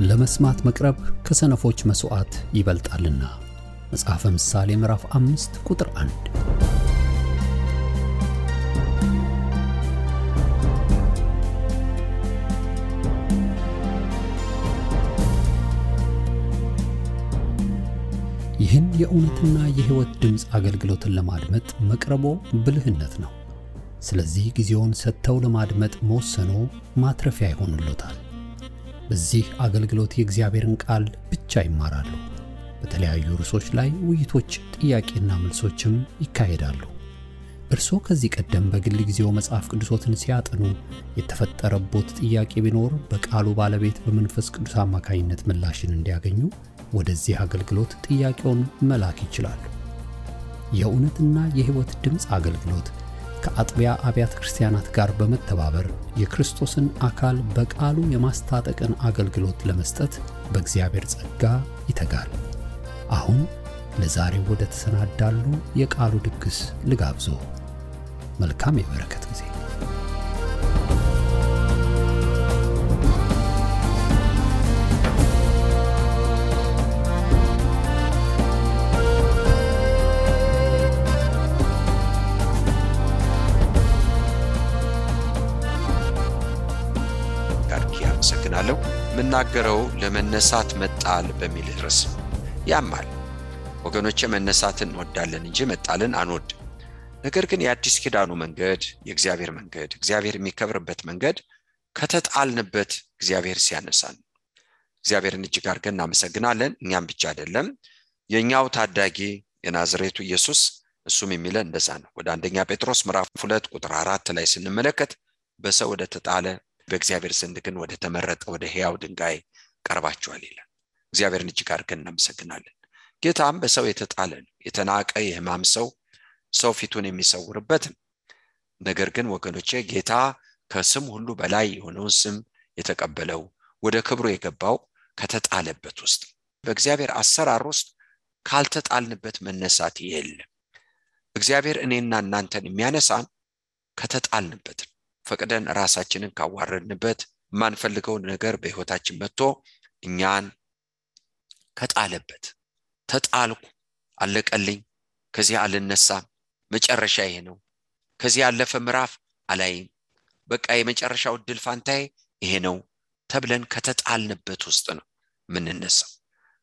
ለመስማት መቅረብ ከሰነፎች መስዋዕት ይበልጣልና። መጽሐፈ ምሳሌ ምዕራፍ 5 ቁጥር 1። ይህን የእውነትና የሕይወት ድምጽ አገልግሎትን ለማድመጥ መቅረቦ ብልህነት ነው። ስለዚህ ጊዜውን ሰጥተው ለማድመጥ መወሰኖ ማትረፊያ ይሆንልዎታል። በዚህ አገልግሎት የእግዚአብሔርን ቃል ብቻ ይማራሉ። በተለያዩ ርዕሶች ላይ ውይይቶች፣ ጥያቄና መልሶችም ይካሄዳሉ። እርስዎ ከዚህ ቀደም በግል ጊዜው መጽሐፍ ቅዱሶትን ሲያጠኑ የተፈጠረቦት ጥያቄ ቢኖር በቃሉ ባለቤት በመንፈስ ቅዱስ አማካኝነት ምላሽን እንዲያገኙ ወደዚህ አገልግሎት ጥያቄውን መላክ ይችላሉ። የእውነትና የሕይወት ድምጽ አገልግሎት ከአጥቢያ አብያተ ክርስቲያናት ጋር በመተባበር የክርስቶስን አካል በቃሉ የማስታጠቅን አገልግሎት ለመስጠት በእግዚአብሔር ጸጋ ይተጋል። አሁን ለዛሬው ወደ ተሰናዳሉ የቃሉ ድግስ ልጋብዞ። መልካም የበረከት ጊዜ። አመሰግናለሁ። ምናገረው ለመነሳት መጣል በሚል ርዕስ ያማል። ወገኖቼ መነሳትን እንወዳለን እንጂ መጣልን አንወድም። ነገር ግን የአዲስ ኪዳኑ መንገድ፣ የእግዚአብሔር መንገድ፣ እግዚአብሔር የሚከብርበት መንገድ ከተጣልንበት እግዚአብሔር ሲያነሳን እግዚአብሔርን እጅግ አድርገን እናመሰግናለን። እኛም ብቻ አይደለም፣ የኛው ታዳጊ የናዝሬቱ ኢየሱስ እሱም የሚለን እንደዛ ነው። ወደ አንደኛ ጴጥሮስ ምዕራፍ 2 ቁጥር 4 ላይ ስንመለከት በሰው ወደ ተጣለ በእግዚአብሔር ዘንድ ግን ወደ ተመረጠ ወደ ሕያው ድንጋይ ቀርባችኋል ይላል። እግዚአብሔርን እጅግ አድርገን እናመሰግናለን። ጌታም በሰው የተጣለ የተናቀ የሕማም ሰው ፊቱን የሚሰውርበት። ነገር ግን ወገኖቼ ጌታ ከስም ሁሉ በላይ የሆነውን ስም የተቀበለው ወደ ክብሩ የገባው ከተጣለበት ውስጥ፣ በእግዚአብሔር አሰራር ውስጥ ካልተጣልንበት መነሳት የለም። እግዚአብሔር እኔና እናንተን የሚያነሳን ከተጣልንበት፣ ፈቅደን ራሳችንን ካዋረድንበት፣ ማንፈልገውን ነገር በሕይወታችን መጥቶ እኛን ከጣለበት። ተጣልኩ፣ አለቀልኝ፣ ከዚህ አልነሳም፣ መጨረሻ ይሄ ነው፣ ከዚህ ያለፈ ምዕራፍ አላይም፣ በቃ የመጨረሻው ድል ፋንታዬ ይሄ ነው ተብለን ከተጣልንበት ውስጥ ነው ምንነሳው።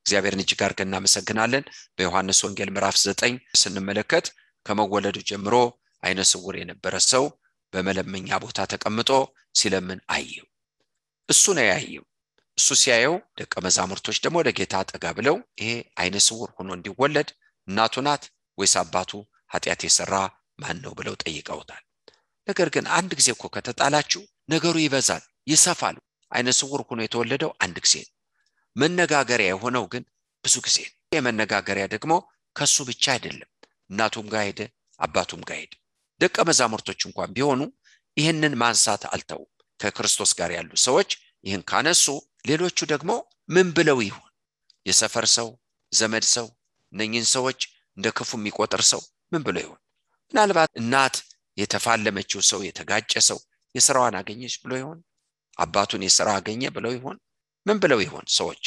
እግዚአብሔርን እጅግ አድርገን እናመሰግናለን። በዮሐንስ ወንጌል ምዕራፍ 9 ስንመለከት ከመወለዱ ጀምሮ አይነ ስውር የነበረ ሰው በመለመኛ ቦታ ተቀምጦ ሲለምን አየው። እሱ ነው ያየው። እሱ ሲያየው ደቀ መዛሙርቶች ደግሞ ወደ ጌታ ጠጋ ብለው ይሄ አይነ ስውር ሆኖ እንዲወለድ እናቱ ናት ወይስ አባቱ ኃጢአት የሰራ ማን ነው ብለው ጠይቀውታል። ነገር ግን አንድ ጊዜ እኮ ከተጣላችሁ ነገሩ ይበዛል፣ ይሰፋል። አይነ ስውር ሆኖ የተወለደው አንድ ጊዜ ነው። መነጋገሪያ የሆነው ግን ብዙ ጊዜ ነው። የመነጋገሪያ ደግሞ ከሱ ብቻ አይደለም፣ እናቱም ጋር ሄደ፣ አባቱም ጋር ሄደ። ደቀ መዛሙርቶች እንኳን ቢሆኑ ይህንን ማንሳት አልተው። ከክርስቶስ ጋር ያሉ ሰዎች ይህን ካነሱ ሌሎቹ ደግሞ ምን ብለው ይሆን? የሰፈር ሰው፣ ዘመድ ሰው፣ እነኝን ሰዎች እንደ ክፉ የሚቆጥር ሰው ምን ብለው ይሆን? ምናልባት እናት የተፋለመችው ሰው፣ የተጋጨ ሰው የሥራዋን አገኘች ብሎ ይሆን? አባቱን የሥራ አገኘ ብለው ይሆን? ምን ብለው ይሆን ሰዎች?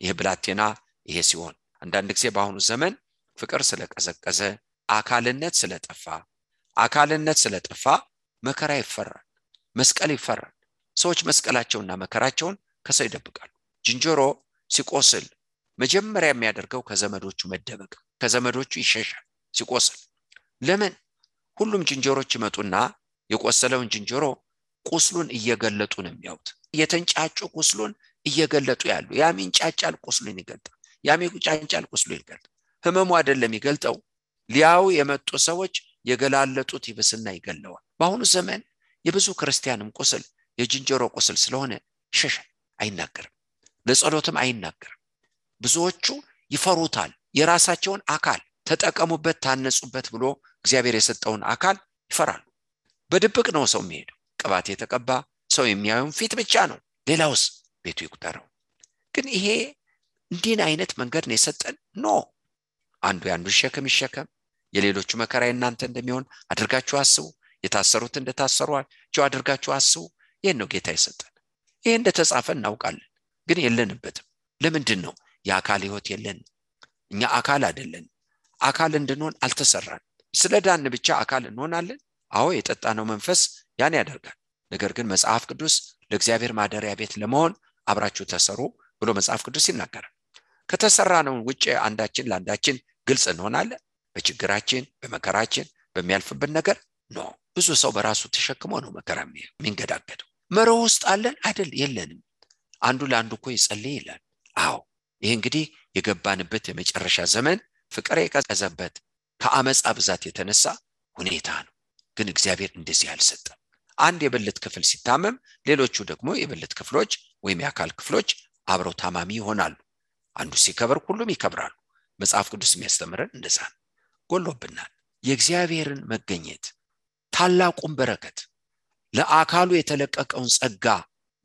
ይህ ብላቴና ይሄ ሲሆን፣ አንዳንድ ጊዜ በአሁኑ ዘመን ፍቅር ስለቀዘቀዘ፣ አካልነት ስለጠፋ መከራ ይፈራል፣ መስቀል ይፈራል። ሰዎች መስቀላቸውና መከራቸውን ከሰው ይደብቃሉ። ዝንጀሮ ሲቆስል መጀመሪያ የሚያደርገው ከዘመዶቹ መደበቅ፣ ከዘመዶቹ ይሸሻል ሲቆስል። ለምን? ሁሉም ዝንጀሮች ይመጡና የቆሰለውን ዝንጀሮ ቁስሉን እየገለጡ ነው የሚያዩት። የተንጫጩ ቁስሉን እየገለጡ ያሉ። ያም ይንጫጫል፣ ቁስሉን ይገልጣል። ያም ይንጫጫል፣ ቁስሉን ይገልጣል። ህመሙ አይደለም ይገልጠው፣ ሊያው የመጡ ሰዎች የገላለጡት ይብስና ይገለዋል። በአሁኑ ዘመን የብዙ ክርስቲያንም ቁስል የዝንጀሮ ቁስል ስለሆነ ይሸሻል፣ አይናገርም፣ ለጸሎትም አይናገርም። ብዙዎቹ ይፈሩታል። የራሳቸውን አካል ተጠቀሙበት፣ ታነጹበት ብሎ እግዚአብሔር የሰጠውን አካል ይፈራሉ። በድብቅ ነው ሰው የሚሄደው። ቅባት የተቀባ ሰው የሚያዩን ፊት ብቻ ነው፣ ሌላውስ ቤቱ ይቁጠረው። ግን ይሄ እንዲህ አይነት መንገድ ነው የሰጠን። አንዱ ያንዱ ሸክም ይሸከም፣ የሌሎቹ መከራ እናንተ እንደሚሆን አድርጋችሁ አስቡ፣ የታሰሩት እንደታሰሩአቸው አድርጋችሁ አስቡ። ይሄን ነው ጌታ የሰጠን። ይሄ እንደተጻፈ እናውቃለን። ግን የለንበትም። ለምንድን ነው የአካል ህይወት የለን? እኛ አካል አይደለን። አካል እንድንሆን አልተሰራን። ስለዳን ብቻ አካል እንሆናለን? አዎ የጠጣነው መንፈስ ያን ያደርጋል። ነገር ግን መጽሐፍ ቅዱስ ለእግዚአብሔር ማደሪያ ቤት ለመሆን አብራችሁ ተሰሩ ብሎ መጽሐፍ ቅዱስ ይናገራል። ከተሰራነው ውጪ አንዳችን ለአንዳችን ግልጽ እንሆናለን? በችግራችን በመከራችን በሚያልፍብን ነገር ነው። ብዙ ሰው በራሱ ተሸክሞ ነው መከራ የሚንገዳገደው። መሮ ውስጥ አለን አይደል? የለንም። አንዱ ለአንዱ እኮ ይጸልይ ይላል። አዎ ይሄ እንግዲህ የገባንበት የመጨረሻ ዘመን ፍቅር የቀዘበት ከአመጻ ብዛት የተነሳ ሁኔታ ነው። ግን እግዚአብሔር እንደዚህ አልሰጠም። አንድ የብልት ክፍል ሲታመም ሌሎቹ ደግሞ የብልት ክፍሎች ወይም የአካል ክፍሎች አብረው ታማሚ ይሆናሉ። አንዱ ሲከበር ሁሉም ይከብራሉ። መጽሐፍ ቅዱስ የሚያስተምረን እንደዛ ነው። ጎሎብናል። የእግዚአብሔርን መገኘት ታላቁን በረከት ለአካሉ የተለቀቀውን ጸጋ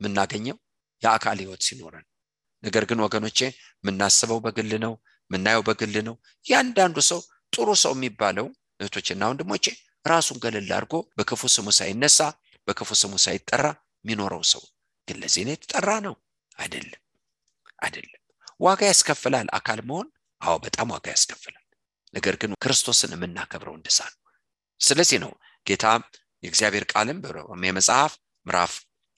የምናገኘው የአካል ህይወት ሲኖረን። ነገር ግን ወገኖቼ የምናስበው በግል ነው፣ የምናየው በግል ነው። ያንዳንዱ ሰው ጥሩ ሰው የሚባለው እህቶችና ወንድሞቼ ራሱን ገለል አድርጎ በክፉ ስሙ ሳይነሳ በክፉ ስሙ ሳይጠራ የሚኖረው ሰው ግን ለዚህ ነው የተጠራ ነው አይደለም። ዋጋ ያስከፍላል አካል መሆን። አዎ በጣም ዋጋ ያስከፍላል። ነገር ግን ክርስቶስን የምናከብረው እንደዛ ነው። ስለዚህ ነው ጌታ የእግዚአብሔር ቃልም በሮሜ መጽሐፍ ምዕራፍ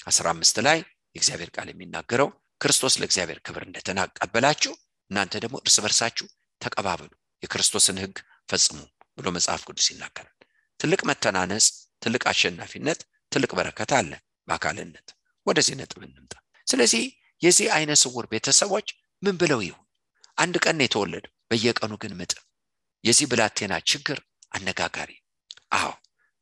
15 ላይ የእግዚአብሔር ቃል የሚናገረው ክርስቶስ ለእግዚአብሔር ክብር እንደተቀበላችሁ እናንተ ደግሞ እርስ በርሳችሁ ተቀባበሉ፣ የክርስቶስን ሕግ ፈጽሙ ብሎ መጽሐፍ ቅዱስ ይናገራል። ትልቅ መተናነጽ፣ ትልቅ አሸናፊነት፣ ትልቅ በረከት አለ በአካልነት። ወደዚህ ነጥብ እንምጣ። ስለዚህ የዚህ አይነ ስውር ቤተሰቦች ምን ብለው ይሁን? አንድ ቀን ነው የተወለደው፣ በየቀኑ ግን ምጥ። የዚህ ብላቴና ችግር አነጋጋሪ። አዎ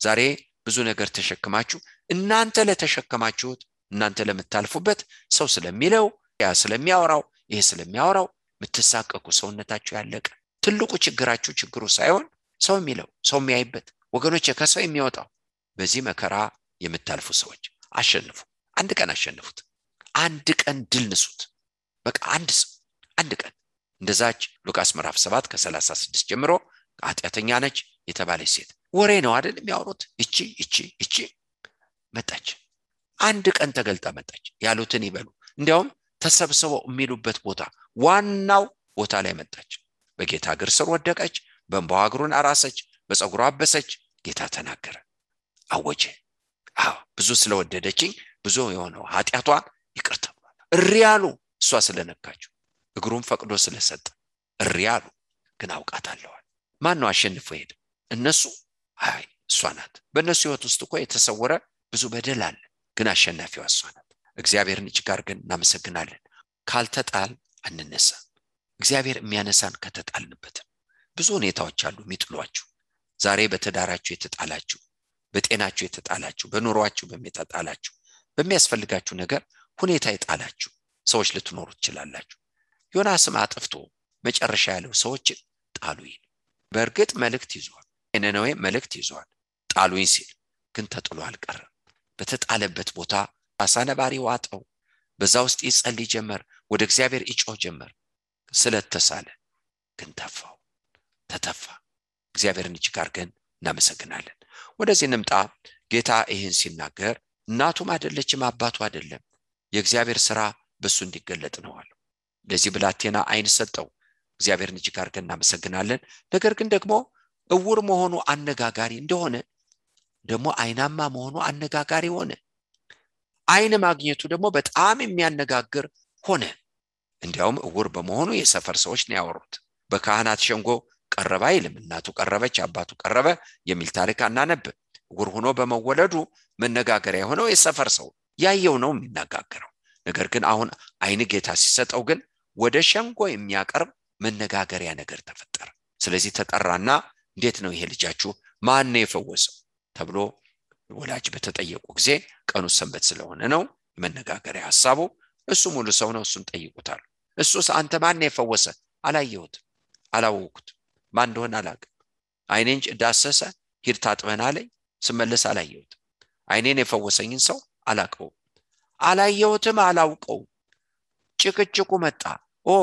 ዛሬ ብዙ ነገር ተሸክማችሁ እናንተ ለተሸከማችሁት እናንተ ለምታልፉበት ሰው ስለሚለው ያ ስለሚያወራው ይሄ ስለሚያወራው ምትሳቀቁ ሰውነታችሁ ያለቀ። ትልቁ ችግራችሁ ችግሩ ሳይሆን ሰው የሚለው ሰው የሚያይበት ወገኖች ከሰው የሚወጣው። በዚህ መከራ የምታልፉ ሰዎች አሸንፉ። አንድ ቀን አሸንፉት። አንድ ቀን ድል ንሱት። በቃ አንድ ቀን እንደዛች ሉቃስ ምዕራፍ 7 ከ36 ጀምሮ ኃጢአተኛ ነች የተባለች ሴት ወሬ ነው አይደል የሚያወሩት? እቺ መጣች። አንድ ቀን ተገልጣ መጣች። ያሉትን ይበሉ። እንዲያውም ተሰብስበው የሚሉበት ቦታ ዋናው ቦታ ላይ መጣች። በጌታ እግር ስር ወደቀች። በእንባዋ እግሩን አራሰች፣ በፀጉሯ አበሰች። ጌታ ተናገረ፣ አወጀ። አዎ ብዙ ስለወደደችኝ ብዙ የሆነው ኃጢአቷን ይቅር ተብሏል። እሪያሉ እሷ ስለነካችው እግሩን ፈቅዶ ስለሰጠ እሪያሉ። ግን አውቃታለሁ። ማን ነው አሸንፎ ሄደ? እነሱ? አይ እሷ ናት። በእነሱ ህይወት ውስጥ እኮ የተሰወረ ብዙ በደል አለ። ግን አሸናፊዋ እሷ ናት። እግዚአብሔርን እጅግ አድርገን እናመሰግናለን። ካልተጣል አንነሳ። እግዚአብሔር የሚያነሳን ከተጣልንበት። ብዙ ሁኔታዎች አሉ የሚጥሏችሁ። ዛሬ በትዳራችሁ የተጣላችሁ፣ በጤናችሁ የተጣላችሁ፣ በኑሯችሁ በሚያጣላችሁ፣ በሚያስፈልጋችሁ ነገር ሁኔታ የጣላችሁ ሰዎች ልትኖሩ ትችላላችሁ። ዮናስም አጥፍቶ መጨረሻ ያለው ሰዎችን ጣሉኝ። በእርግጥ መልእክት ይዟል፣ የነነዌ መልእክት ይዟል። ጣሉኝ ሲል ግን ተጥሎ አልቀረም። በተጣለበት ቦታ አሳነባሪ ዋጠው። በዛ ውስጥ ይጸልይ ጀመር፣ ወደ እግዚአብሔር ይጮህ ጀመር። ስለተሳለ ግን ተተፋ። እግዚአብሔርን እጅግ አድርገን እናመሰግናለን። ወደዚህ እንምጣ። ጌታ ይህን ሲናገር እናቱም አይደለችም አባቱ አይደለም፣ የእግዚአብሔር ሥራ በሱ እንዲገለጥ ነው አለው። ለዚህ ብላቴና አይን ሰጠው። እግዚአብሔርን እጅግ አድርገን እናመሰግናለን። ነገር ግን ደግሞ እውር መሆኑ አነጋጋሪ እንደሆነ ደግሞ አይናማ መሆኑ አነጋጋሪ ሆነ። አይን ማግኘቱ ደግሞ በጣም የሚያነጋግር ሆነ። እንዲያውም እውር በመሆኑ የሰፈር ሰዎች ነው ያወሩት። በካህናት ሸንጎ ቀረበ አይልም። እናቱ ቀረበች፣ አባቱ ቀረበ የሚል ታሪክ አናነብ። እውር ሆኖ በመወለዱ መነጋገሪያ የሆነው የሰፈር ሰው ያየው ነው የሚነጋገረው። ነገር ግን አሁን አይን ጌታ ሲሰጠው ግን ወደ ሸንጎ የሚያቀርብ መነጋገሪያ ነገር ተፈጠረ። ስለዚህ ተጠራና እንዴት ነው ይሄ ልጃችሁ ማን ነው የፈወሰው ተብሎ ወላጅ በተጠየቁ ጊዜ ቀኑ ሰንበት ስለሆነ ነው መነጋገሪያ ሐሳቡ። እሱ ሙሉ ሰው ነው፣ እሱን ጠይቁታል። እሱስ አንተ ማን ነው የፈወሰ? አላየሁት፣ አላወኩት፣ ማን እንደሆነ አላውቅም። አይኔን ዳሰሰ፣ ሂድ ታጥበና አለኝ፣ ስመለስ አላየሁት። አይኔን የፈወሰኝን ሰው አላየሁትም፣ አላውቀው። ጭቅጭቁ መጣ።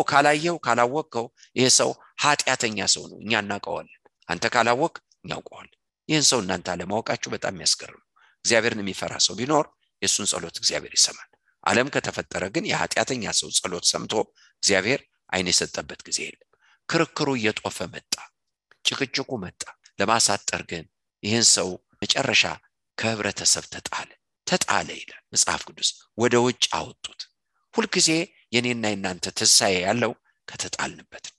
ካላየው ካላወቀው ይሄ ሰው ኃጢአተኛ ሰው ነው፣ እኛ እናውቀዋለን። አንተ ካላወቅ እናውቀዋለን። ይህን ሰው እናንተ አለማወቃችሁ በጣም ያስገርም። እግዚአብሔርን የሚፈራ ሰው ቢኖር የሱን ጸሎት እግዚአብሔር ይሰማል። ዓለም ከተፈጠረ ግን የኃጢአተኛ ሰው ጸሎት ሰምቶ እግዚአብሔር ዓይን የሰጠበት ጊዜ የለም። ክርክሩ እየጦፈ መጣ፣ ጭቅጭቁ መጣ። ለማሳጠር ግን ይህን ሰው መጨረሻ ከህብረተሰብ ተጣለ ይላል መጽሐፍ ቅዱስ። ወደ ውጭ አወጡት። ሁልጊዜ የኔና የናንተ ትንሣኤ ያለው ከተጣልንበት ነው።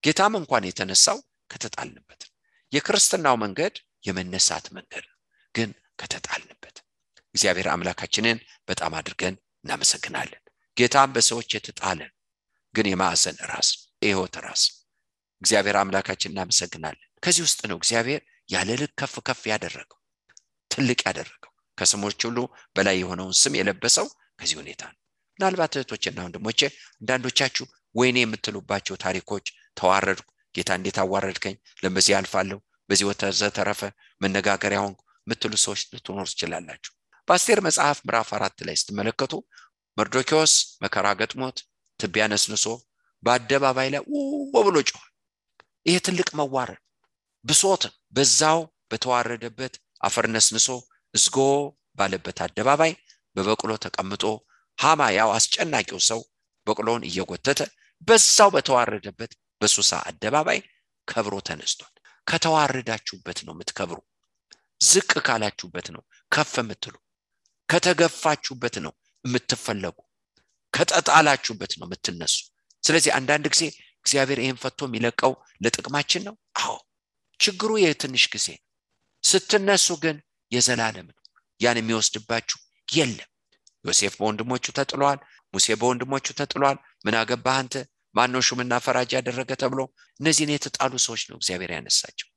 ጌታም እንኳን የተነሳው ከተጣልንበት ነው። የክርስትናው መንገድ የመነሳት መንገድ ነው፣ ግን ከተጣልንበት። እግዚአብሔር አምላካችንን በጣም አድርገን እናመሰግናለን። ጌታም በሰዎች የተጣለ ግን የማዕዘን ራስ፣ የሕይወት ራስ እግዚአብሔር አምላካችን እናመሰግናለን። ከዚህ ውስጥ ነው እግዚአብሔር ያለ ልክ ከፍ ከፍ ያደረገው፣ ትልቅ ያደረገው፣ ከስሞች ሁሉ በላይ የሆነውን ስም የለበሰው ከዚህ ሁኔታ ነው። ምናልባት እህቶችና ወንድሞቼ አንዳንዶቻችሁ ወይኔ የምትሉባቸው ታሪኮች፣ ተዋረድኩ፣ ጌታ እንዴት አዋረድከኝ፣ ለምዚህ አልፋለሁ፣ በዚህ ወተዘተረፈ መነጋገሪያ ሆንኩ የምትሉ ሰዎች ልትኖሩ ትችላላችሁ። በአስቴር መጽሐፍ ምዕራፍ 4 ላይ ስትመለከቱ መርዶክዮስ መከራ ገጥሞት ትቢያ ነስንሶ በአደባባይ ላይ ብሎ ጮኸ። ይሄ ትልቅ መዋረድ ብሶት በዛው በተዋረደበት አፈር ነስንሶ እዝጎ ባለበት አደባባይ በበቅሎ ተቀምጦ ሃማ ያው አስጨናቂው ሰው በቅሎውን እየጎተተ በዛው በተዋረደበት በሱሳ አደባባይ ከብሮ ተነስቷል። ከተዋረዳችሁበት ነው የምትከብሩ። ዝቅ ካላችሁበት ነው ከፍ የምትሉ። ከተገፋችሁበት ነው የምትፈለጉ። ከተጣላችሁበት ነው የምትነሱ። ስለዚህ አንዳንድ ጊዜ እግዚአብሔር ይሄን ፈቶ የሚለቀው ለጥቅማችን ነው። አዎ ችግሩ የትንሽ ጊዜ፣ ስትነሱ ግን የዘላለም ነው። ያን የሚወስድባችሁ የለም። ዮሴፍ በወንድሞቹ ተጥሏል። ሙሴ በወንድሞቹ ተጥሏል። ምን አገባህ አንተ? ማነው ሹምና ፈራጅ ያደረገ ተብሎ እነዚህን የተጣሉ ሰዎች ነው እግዚአብሔር ያነሳቸው።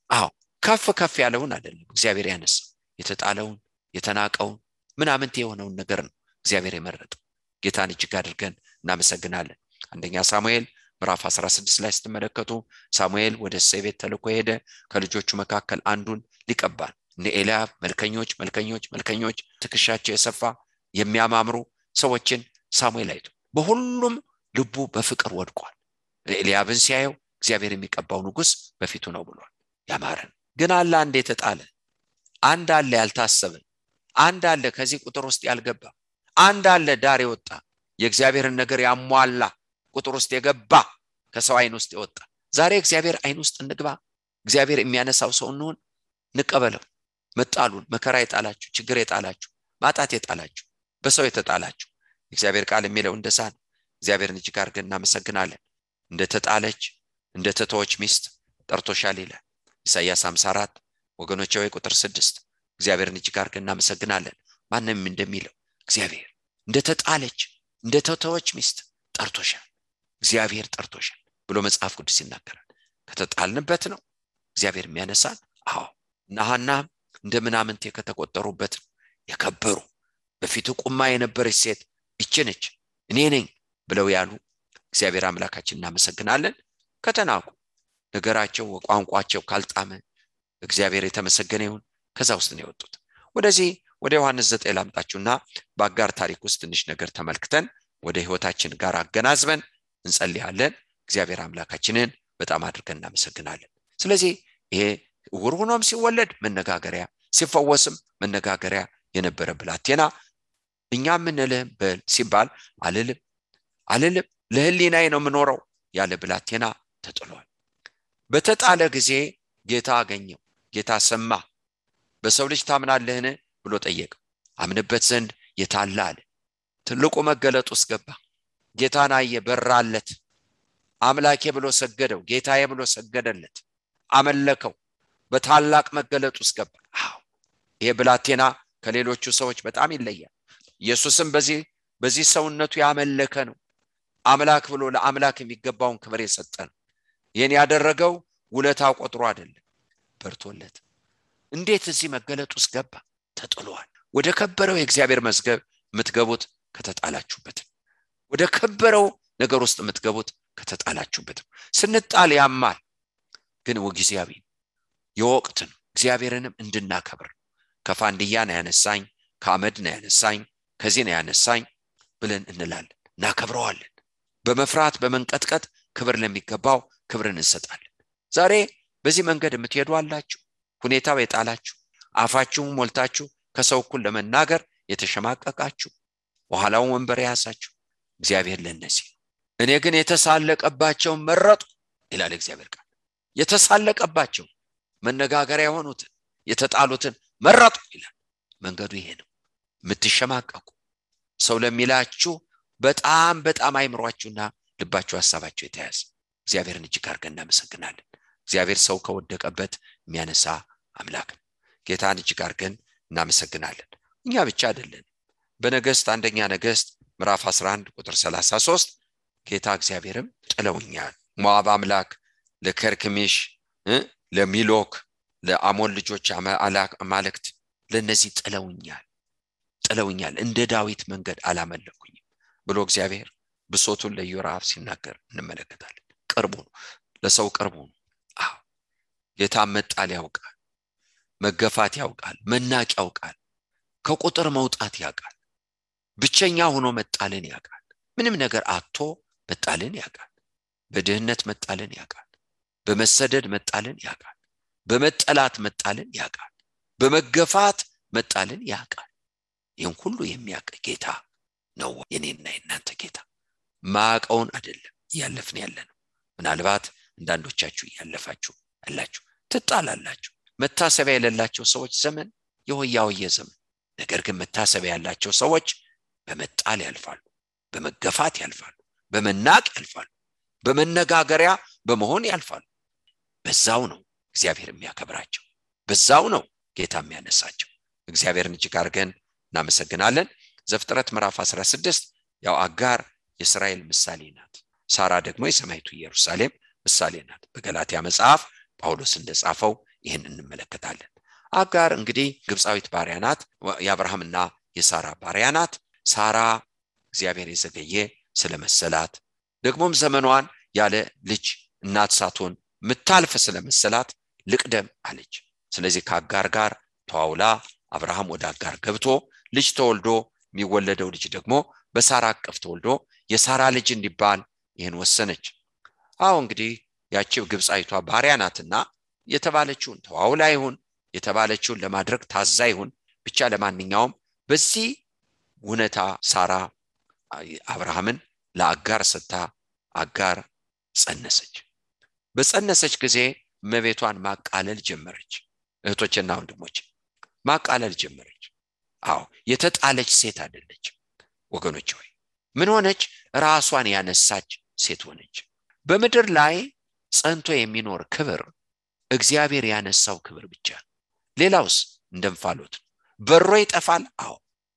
አዎ ከፍ ከፍ ያለውን አይደለም እግዚአብሔር ያነሳው፣ የተጣለውን የተናቀውን ምናምንት የሆነውን ነገር ነው እግዚአብሔር የመረጠው። ጌታን እጅግ አድርገን እናመሰግናለን። አንደኛ ሳሙኤል ምዕራፍ 16 ላይ ስትመለከቱ ሳሙኤል ወደ እሴይ ቤት ተልኮ ሄደ። ከልጆቹ መካከል አንዱን ሊቀባል። እነ ኤልያብ መልከኞች ትከሻቸው የሰፋ የሚያማምሩ ሰዎችን ሳሙኤል አይቶ በሁሉም ልቡ በፍቅር ወድቋል። ኤልያብን ሲያየው እግዚአብሔር የሚቀባው ንጉስ በፊቱ ነው ብሏል። ያማረን ግን አለ አንድ የተጣለ፣ አንድ አለ ያልታሰበ፣ አንድ አለ ከዚህ ቁጥር ውስጥ ያልገባ፣ አንድ አለ ዳር የወጣ የእግዚአብሔርን ነገር ያሟላ ቁጥር ውስጥ የገባ ከሰው አይን ውስጥ የወጣ። ዛሬ እግዚአብሔር አይን ውስጥ እንግባ። እግዚአብሔር የሚያነሳው ሰው እንሆን። ንቀበለው። መጣሉን፣ መከራ የጣላችሁ፣ ችግር የጣላችሁ፣ ማጣት የጣላችሁ፣ በሰው የተጣላችሁ እግዚአብሔር ቃል የሚለው እንደዛ ነው። እግዚአብሔርን እጅግ አድርገን እናመሰግናለን። እንደተጣለች እንደተተወች ሚስት ጠርቶሻል ይላል ኢሳይያስ 54 ወገኖቼ ወይ ቁጥር 6። እግዚአብሔርን እጅግ አድርገን እናመሰግናለን። ማንም እንደሚለው እግዚአብሔር እንደተጣለች እንደተተወች ሚስት ጠርቶሻል፣ እግዚአብሔር ጠርቶሻል ብሎ መጽሐፍ ቅዱስ ይናገራል። ከተጣልንበት ነው እግዚአብሔር የሚያነሳን። አዎ ናሃናም እንደምናምንቴ ከተቆጠሩበት የከበሩ በፊቱ ቁማ የነበረች ሴት እቺነች እኔ ነኝ ብለው ያሉ እግዚአብሔር አምላካችን እናመሰግናለን። ከተናቁ ነገራቸው ቋንቋቸው ካልጣመ እግዚአብሔር የተመሰገነ ይሁን። ከዛ ውስጥ ነው የወጡት። ወደዚህ ወደ ዮሐንስ 9 ላምጣችሁና በአጋር ታሪክ ውስጥ ትንሽ ነገር ተመልክተን ወደ ህይወታችን ጋር አገናዝበን እንጸልያለን። እግዚአብሔር አምላካችንን በጣም አድርገን እናመሰግናለን። ስለዚህ ይሄ ዕውር ሆኖም ሲወለድ መነጋገሪያ፣ ሲፈወስም መነጋገሪያ የነበረ ብላቴና እኛ ምን ልህም በል ሲባል አልልም ለህሊናዬ ነው የምኖረው ያለ ብላቴና ተጥሏል። በተጣለ ጊዜ ጌታ አገኘው። ጌታ ሰማ። በሰው ልጅ ታምናለህን ብሎ ጠየቀው። አምንበት ዘንድ የታለ አለ። ትልቁ መገለጥ ውስጥ ገባ። ጌታን አየ፣ በራለት። አምላኬ ብሎ ሰገደው። ጌታዬ ብሎ ሰገደለት፣ አመለከው። በታላቅ መገለጥ ውስጥ ገባ። አዎ ይሄ ብላቴና ከሌሎቹ ሰዎች በጣም ይለያል። ኢየሱስም በዚህ ሰውነቱ ያመለከ ነው። አምላክ ብሎ ለአምላክ የሚገባውን ክብር የሰጠ ነው። ይሄን ያደረገው ውለታው ቆጥሮ አይደለም፣ በርቶለት። እንዴት እዚህ መገለጥ ውስጥ ገባ? ተጥሏል። ወደ ከበረው የእግዚአብሔር መዝገብ የምትገቡት ከተጣላችሁበት፣ ወደ ከበረው ነገር ውስጥ የምትገቡት ከተጣላችሁበት። ስንጣል ያማል፣ ግን ወጊዜያዊ የወቅት ነው። እግዚአብሔርንም እንድናከብር ከፋንድያ ነው ያነሳኝ፣ ከአመድ ነው ያነሳኝ፣ ከዚህ ነው ያነሳኝ ብለን እንላለን፣ እናከብረዋለን። በመፍራት በመንቀጥቀጥ ክብር ለሚገባው ክብርን እንሰጣለን። ዛሬ በዚህ መንገድ የምትሄዱ አላችሁ። ሁኔታው የጣላችሁ፣ አፋችሁን ሞልታችሁ ከሰው እኩል ለመናገር የተሸማቀቃችሁ በኋላው ወንበር ያሳችሁ እግዚአብሔር ለነዚህ እኔ ግን የተሳለቀባቸው መረጡ ይላል እግዚአብሔር ቃል። የተሳለቀባቸው መነጋገሪያ የሆኑትን የተጣሉትን መረጡ ይላል። መንገዱ ይሄ ነው። የምትሸማቀቁ ሰው ለሚላችሁ በጣም አይምሯችሁና ልባችሁ ሐሳባችሁ የተያዘ እግዚአብሔርን እጅግ አድርገን እናመሰግናለን። እግዚአብሔር ሰው ከወደቀበት የሚያነሳ አምላክ ነው። ጌታን እጅግ አድርገን እናመሰግናለን። እኛ ብቻ አይደለን። በነገሥት አንደኛ ነገሥት ምዕራፍ 11 ቁጥር 33 ጌታ እግዚአብሔርም ጥለውኛል፣ ሞዓብ አምላክ ለከርክሚሽ ለሚሎክ ለአሞን ልጆች አማልክት ለነዚህ ጥለውኛል እንደ ዳዊት መንገድ አላመለኩኝም ብሎ እግዚአብሔር ብሶቱን ለኢዮራብ ሲናገር እንመለከታለን። ቅርቡ ነው፣ ለሰው ቅርቡ ነው። አዎ ጌታ መጣል ያውቃል፣ መገፋት ያውቃል፣ መናቅ ያውቃል፣ ከቁጥር መውጣት ያውቃል፣ ብቸኛ ሆኖ መጣልን ያውቃል፣ ምንም ነገር አጥቶ መጣልን ያውቃል፣ በድህነት መጣልን ያውቃል፣ በመሰደድ መጣልን ያውቃል፣ በመጠላት መጣልን ያውቃል፣ በመገፋት መጣልን ያውቃል። ይህን ሁሉ የሚያውቅ ጌታ ነው የኔና የናንተ ጌታ። ማቀውን አይደለም ያለፍን ያለነው። ምናልባት አንዳንዶቻችሁ ያለፋችሁ አላችሁ፣ ትጣላላችሁ። መታሰቢያ የሌላቸው ሰዎች ዘመን የሆያውየ ዘመን። ነገር ግን መታሰቢያ ያላቸው ሰዎች በመጣል ያልፋሉ፣ በመገፋት ያልፋሉ፣ በመናቅ ያልፋሉ፣ በመነጋገሪያ በመሆን ያልፋሉ። በዛው ነው እግዚአብሔር የሚያከብራቸው፣ በዛው ነው ጌታ የሚያነሳቸው። እግዚአብሔርን እጅግ አድርገን እናመሰግናለን። ዘፍጥረት ምዕራፍ 16 ያው አጋር የእስራኤል ምሳሌ ናት፣ ሳራ ደግሞ የሰማይቱ ኢየሩሳሌም ምሳሌ ናት። በገላትያ መጽሐፍ ጳውሎስ እንደጻፈው ይህን እንመለከታለን። አጋር እንግዲህ ግብፃዊት ባሪያ ናት፣ የአብርሃምና የሳራ ባሪያ ናት። ሳራ እግዚአብሔር የዘገየ ስለመሰላት ደግሞም ዘመኗን ያለ ልጅ እናት ሳትሆን ምታልፍ ስለመሰላት ልቅደም አለች። ስለዚህ ከአጋር ጋር ተዋውላ አብርሃም ወደ አጋር ገብቶ ልጅ ተወልዶ የሚወለደው ልጅ ደግሞ በሳራ አቅፍ ተወልዶ የሳራ ልጅ እንዲባል ይህን ወሰነች። አዎ እንግዲህ ያቺው ግብፃዊቷ ባሪያ ናትና የተባለችውን ተዋውላ ይሁን የተባለችውን ለማድረግ ታዛ ይሁን ብቻ ለማንኛውም በዚህ ሁኔታ ሳራ አብርሃምን ለአጋር ሰጥታ አጋር ጸነሰች። በጸነሰች ጊዜ መቤቷን ማቃለል ጀመረች። እህቶችና ወንድሞች ማቃለል ጀመረች። አዎ የተጣለች ሴት አይደለች ወገኖች ሆይ። ምን ሆነች? ራሷን ያነሳች ሴት ሆነች። በምድር ላይ ጸንቶ የሚኖር ክብር እግዚአብሔር ያነሳው ክብር ብቻ። ሌላውስ እንደምፋሎት በሮ ይጠፋል። አዎ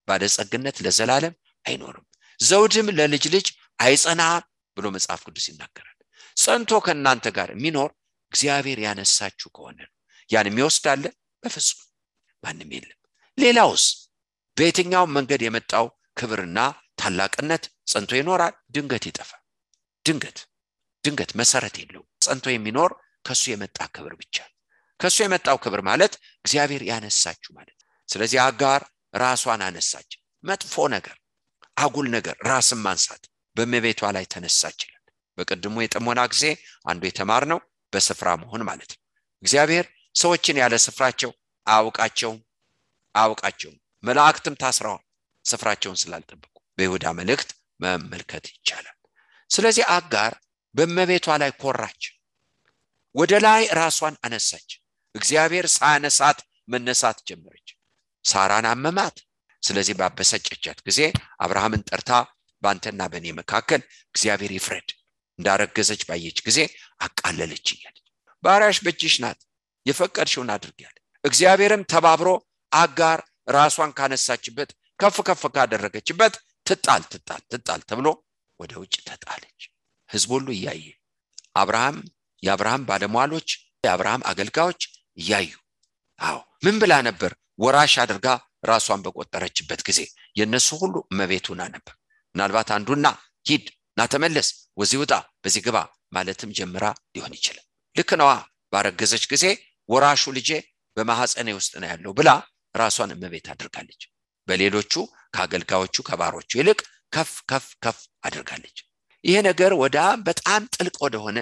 ባለጸግነት ለዘላለም አይኖርም፣ ዘውድም ለልጅ ልጅ አይጸናም ብሎ መጽሐፍ ቅዱስ ይናገራል። ጸንቶ ከናንተ ጋር የሚኖር እግዚአብሔር ያነሳችሁ ከሆነ ነው። ያን የሚወስዳለ በፍጹም ማንም የለም። ሌላውስ በየትኛው መንገድ የመጣው ክብርና ታላቅነት ጸንቶ ይኖራል? ድንገት ይጠፋል። ድንገት መሰረት የለው። ጸንቶ የሚኖር ከሱ የመጣ ክብር ብቻ። ከሱ የመጣው ክብር ማለት እግዚአብሔር ያነሳችሁ ማለት። ስለዚህ አጋር ራሷን አነሳች። መጥፎ ነገር፣ አጉል ነገር፣ ራስን ማንሳት በመቤቷ ላይ ተነሳች ይላል። በቀድሞ የጥሞና ጊዜ አንዱ የተማርነው በስፍራ መሆን ማለት ነው። እግዚአብሔር ሰዎችን ያለ ስፍራቸው አውቃቸውም። መላእክትም ታስረዋል ስፍራቸውን ስላልጠበቁ። በይሁዳ መልእክት መመልከት ይቻላል። ስለዚህ አጋር በመቤቷ ላይ ኮራች፣ ወደ ላይ ራሷን አነሳች። እግዚአብሔር ሳያነሳት መነሳት ጀመረች። ሳራን አመማት። ስለዚህ ባበሰጨቻት ጊዜ አብርሃምን ጠርታ ባንተና በኔ መካከል እግዚአብሔር ይፍረድ፣ እንዳረገዘች ባየች ጊዜ አቃለለች ይላል። ባሪያሽ በእጅሽ ናት፣ የፈቀድሽውን አድርጊያለሁ። እግዚአብሔርም ተባብሮ አጋር ራሷን ካነሳችበት ከፍ ካደረገችበት ትጣል ተብሎ ወደ ውጭ ተጣለች። ሕዝብ ሁሉ እያየ የአብርሃም ባለሟሎች የአብርሃም አገልጋዮች እያዩ አዎ ምን ብላ ነበር? ወራሽ አድርጋ ራሷን በቆጠረችበት ጊዜ የነሱ ሁሉ መቤቱና ነበር። ምናልባት አንዱና ሂድ ና ተመለስ፣ ወዚህ ውጣ፣ በዚህ ግባ ማለትም ጀምራ ሊሆን ይችላል። ልክ ነዋ። ባረገዘች ጊዜ ወራሹ ልጄ በማህፀኔ ውስጥ ነው ያለው ብላ ራሷን መቤት አድርጋለች። በሌሎቹ ከአገልጋዮቹ ከባሮቹ ይልቅ ከፍ አድርጋለች። ይሄ ነገር በጣም ጥልቅ ወደሆነ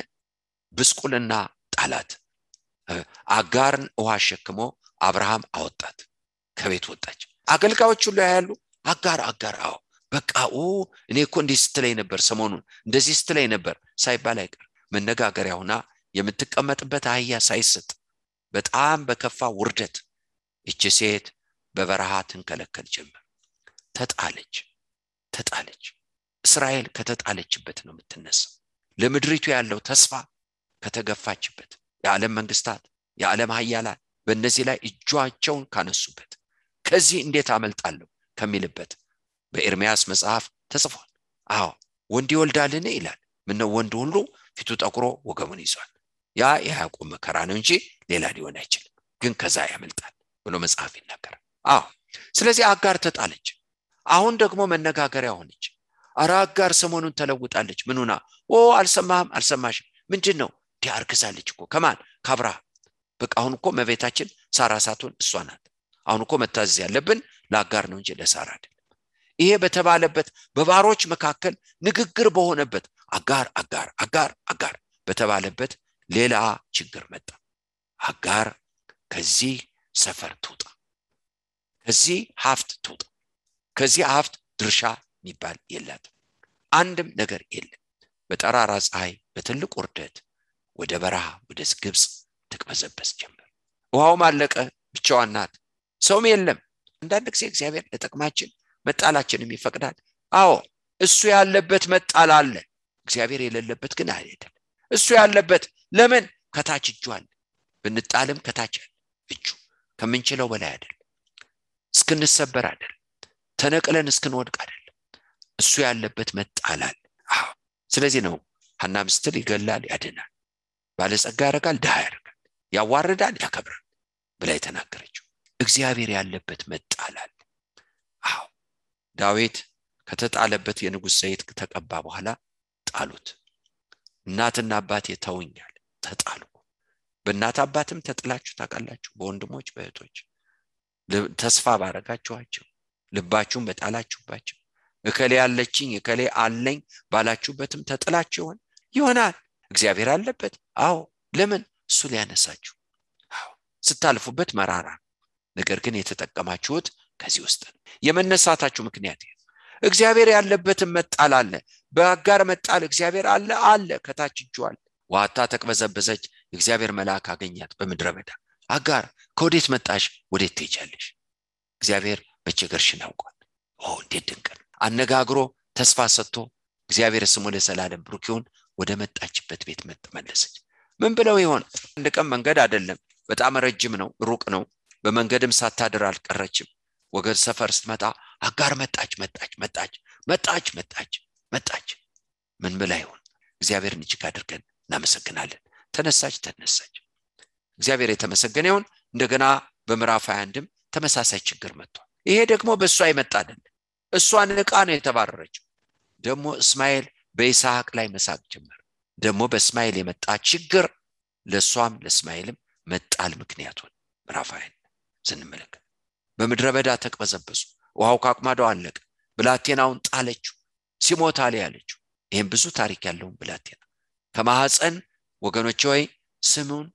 ብስቁልና ጣላት። አጋርን ውሃ ሸክሞ አብርሃም አወጣት፣ ከቤት ወጣች። አገልጋዮቹ ሁሉ ያያሉ። አጋር በቃ እኔ እኮ እንዲህ ስትለኝ ነበር ሰሞኑን እንደዚህ ስትለኝ ነበር ሳይባል አይቀር መነጋገሪያ ሆና የምትቀመጥበት አህያ ሳይሰጥ በጣም በከፋ ውርደት እቺ ሴት በበረሃ ትንከለከል ጀመር። ተጣለች። እስራኤል ከተጣለችበት ነው የምትነሳው። ለምድሪቱ ያለው ተስፋ ከተገፋችበት፣ የዓለም መንግስታት የዓለም ኃያላን በእነዚህ ላይ እጃቸውን ካነሱበት፣ ከዚህ እንዴት አመልጣለሁ ከሚልበት በኤርምያስ መጽሐፍ ተጽፏል። ወንድ ይወልዳልን ይላል። ምነው ወንድ ሁሉ ፊቱ ጠቁሮ ወገሙን ይዟል። ያ የያዕቆብ መከራ ነው እንጂ ሌላ ሊሆን አይችልም፣ ግን ከዛ ያመልጣል ብሎ መጽሐፍ ይናገራል። ስለዚህ አጋር ተጣለች። አሁን ደግሞ መነጋገሪያ ሆነች። አጋር ሰሞኑን ተለውጣለች። ምኑና አልሰማሽም ምንድነው? ዲያርክሳለች እኮ ከማን? ከአብርሃም። በቃ አሁን እኮ መቤታችን ሳራ ሳትሆን እሷ ናት። አሁን እኮ መታዘዝ ያለብን ለአጋር ነው እንጂ ለሳራ አይደለም። ይሄ በተባለበት በባሮች መካከል ንግግር በሆነበት አጋር በተባለበት ሌላ ችግር መጣ። አጋር ከዚህ ሰፈር ትውጣ፣ ከዚህ ሀብት ትውጣ። ከዚህ ሀብት ድርሻ የሚባል የላትም። አንድም ነገር የለም። በጠራራ ፀሐይ በትልቅ ውርደት ወደ በረሃ ወደ ግብጽ ትቅበዘበዝ ጀመር። ውሃው ማለቀ፣ ብቻዋን ናት፣ ሰውም የለም። አንዳንድ ጊዜ እግዚአብሔር ለጥቅማችን መጣላችንም ይፈቅዳል። እሱ ያለበት መጣል አለ፣ እግዚአብሔር የሌለበት ግን አይደለም። እሱ ያለበት ለምን? ከታች እጁ አለ። ብንጣልም ከታች እጁ ከምንችለው በላይ አይደለም። እስክንሰበር አይደለም፣ ተነቅለን እስክንወድቅ አይደለም። እሱ ያለበት መጣል አለ። ስለዚህ ነው ሐና ምስትል ይገላል ያድናል፣ ባለጸጋ ያረጋል ድሃ ያረጋል፣ ያዋርዳል ያከብራል ብላ የተናገረችው። እግዚአብሔር ያለበት መጣል አለ። ዳዊት ከተጣለበት የንጉስ ዘይት ተቀባ በኋላ ጣሉት። እናትና አባቴ ተውኛል፣ ተጣሉ። በእናት አባትም ተጥላችሁ ታውቃላችሁ? በወንድሞች በእህቶች ተስፋ ባረጋችኋቸው፣ ልባችሁን በጣላችሁባቸው፣ እከሌ ያለችኝ እከሌ አለኝ ባላችሁበትም ተጥላችሁ ይሆናል። እግዚአብሔር አለበት። ለምን? እሱ ሊያነሳችሁ። ስታልፉበት መራራ፣ ነገር ግን የተጠቀማችሁት ከዚህ ውስጥ የመነሳታችሁ ምክንያት እግዚአብሔር ያለበትን መጣል አለ። በአጋር መጣል እግዚአብሔር አለ ከታች እጁ አለ። ዋታ ተቅበዘበዘች። እግዚአብሔር መልአክ አገኛት በምድረ በዳ። አጋር ከወዴት መጣሽ? ወዴት ትሄጃለሽ? እግዚአብሔር በቸገርሽን ያውቃል። እንዴት ድንቅ አነጋግሮ ተስፋ ሰጥቶ እግዚአብሔር ስሙ ለዘላለም ብሩክ ይሁን። ወደ መጣችበት ቤት መለሰች። ምን ብለው ይሆን? አንድ ቀን መንገድ አይደለም፣ በጣም ረጅም ነው፣ ሩቅ ነው። በመንገድም ሳታድር አልቀረችም። ወገን ሰፈር ስትመጣ አጋር መጣች። ምን ብላ ይሆን? እግዚአብሔርን እጅግ አድርገን እናመሰግናለን። ተነሳች። እግዚአብሔር የተመሰገነ ይሁን። እንደገና በምዕራፍ 21ም ተመሳሳይ ችግር መጥቷል። ይሄ ደግሞ በእሷ የመጣ አይደለም። እሷ ንቃ ነው የተባረረችው። ደግሞ እስማኤል በይስሐቅ ላይ መሳቅ ጀመረ። ደግሞ በእስማኤል የመጣ ችግር ለሷም ለእስማኤልም መጣል ምክንያት ሆነ። ምዕራፍ 20 ስንመለከት በምድረ በዳ ተቅበዘበዙ። ውሃው ካቅማዳው አለቀ። ብላቴናውን ጣለችው። ሲሞት አለ ያለችው። ይሄን ብዙ ታሪክ ያለው ብላቴና ከማህፀን ወገኖች ሆይ ስሙን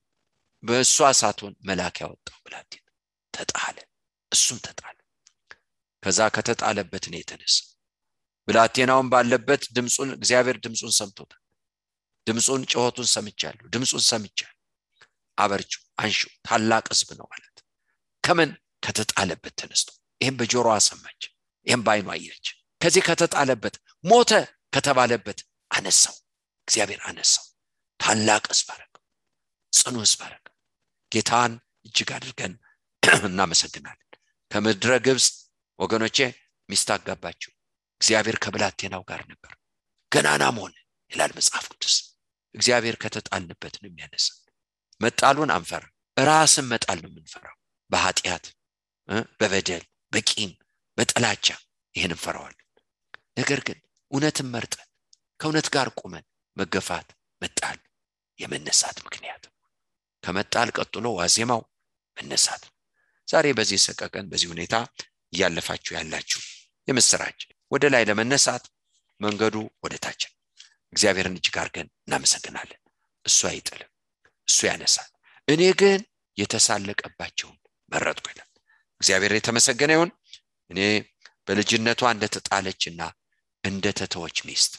በእሷ ሳትሆን መልአክ ያወጣው ብላቴና ተጣለ። እሱም ተጣለ። ከዛ ከተጣለበት ነው የተነሳ። ብላቴናውን ባለበት ድምጹን እግዚአብሔር ድምጹን ሰምቶታል። ድምጹን ጮሆቱን ሰምቻለሁ፣ ድምጹን ሰምቻለሁ፣ አበርቹ አንሹ ታላቅ ሕዝብ ነው ማለት። ከምን? ከተጣለበት ተነስቶ። ይሄን በጆሮዋ ሰማች፣ ይሄን ባይኗ አየች። ከዚህ ከተጣለበት ሞተ ከተባለበት አነሳው። እግዚአብሔር አነሳው። ታላቅ ሕዝብ አደረገው፣ ጽኑ ሕዝብ አደረገው። ጌታን እጅግ አድርገን እናመሰግናለን። ከምድረ ግብጽ ወገኖቼ ሚስት አጋባችው። እግዚአብሔር ከብላቴናው ጋር ነበር። ገናናም ሆነ ይላል መጽሐፍ ቅዱስ። እግዚአብሔር ከተጣልንበት ነው የሚያነሳው። መጣሉን አንፈራ፣ ራስን መጣል ነው የምንፈራው። በኃጢአት በበደል በቂም በጥላቻ ይሄን እንፈራዋለን። ነገር ግን እውነትን መርጠን ከእውነት ጋር ቆመን መገፋት መጣል የመነሳት ምክንያት። ከመጣል ቀጥሎ ዋዜማው መነሳት። ዛሬ በዚህ ሰቀቀን በዚህ ሁኔታ ያለፋችሁ ያላችሁ የምስራች ወደ ላይ ለመነሳት መንገዱ ወደ ታች። እግዚአብሔርን እጅግ አድርገን እናመሰግናለን። እሱ አይጥልም፣ እሱ ያነሳል። እኔ ግን የተሳለቀባቸውን መረጥኩ ይላል እግዚአብሔር። የተመሰገነ ይሁን። እኔ በልጅነቷ እንደተጣለችና እንደተተወች ሚስት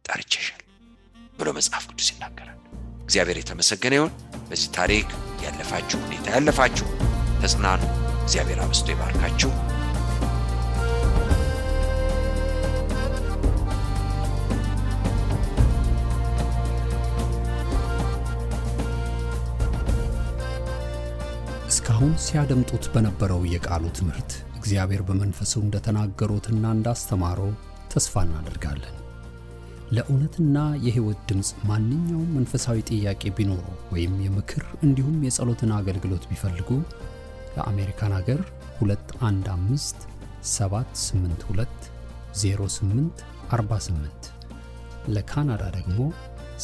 ጠርቼሻል ብሎ መጽሐፍ ቅዱስ ይናገራል። እግዚአብሔር የተመሰገነ ይሁን። በዚህ ታሪክ ያለፋችሁ ሁኔታ ያለፋችሁ ተጽናኑ። እግዚአብሔር አብዝቶ ይባርካችሁ። እስካሁን ሲያደምጡት በነበረው የቃሉ ትምህርት እግዚአብሔር በመንፈሱ እንደተናገሩትና እንዳስተማረው ተስፋ እናደርጋለን። ለእውነትና የሕይወት ድምጽ ማንኛውም መንፈሳዊ ጥያቄ ቢኖሩ ወይም የምክር እንዲሁም የጸሎትን አገልግሎት ቢፈልጉ ለአሜሪካን ሀገር 215-782-0848 ለካናዳ ደግሞ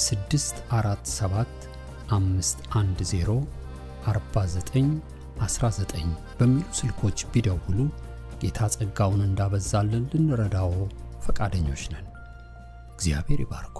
647-510-4919 በሚሉ ስልኮች ቢደውሉ ጌታ ጸጋውን እንዳበዛልን ልንረዳው ፈቃደኞች ነን። እግዚአብሔር ይባርኮ።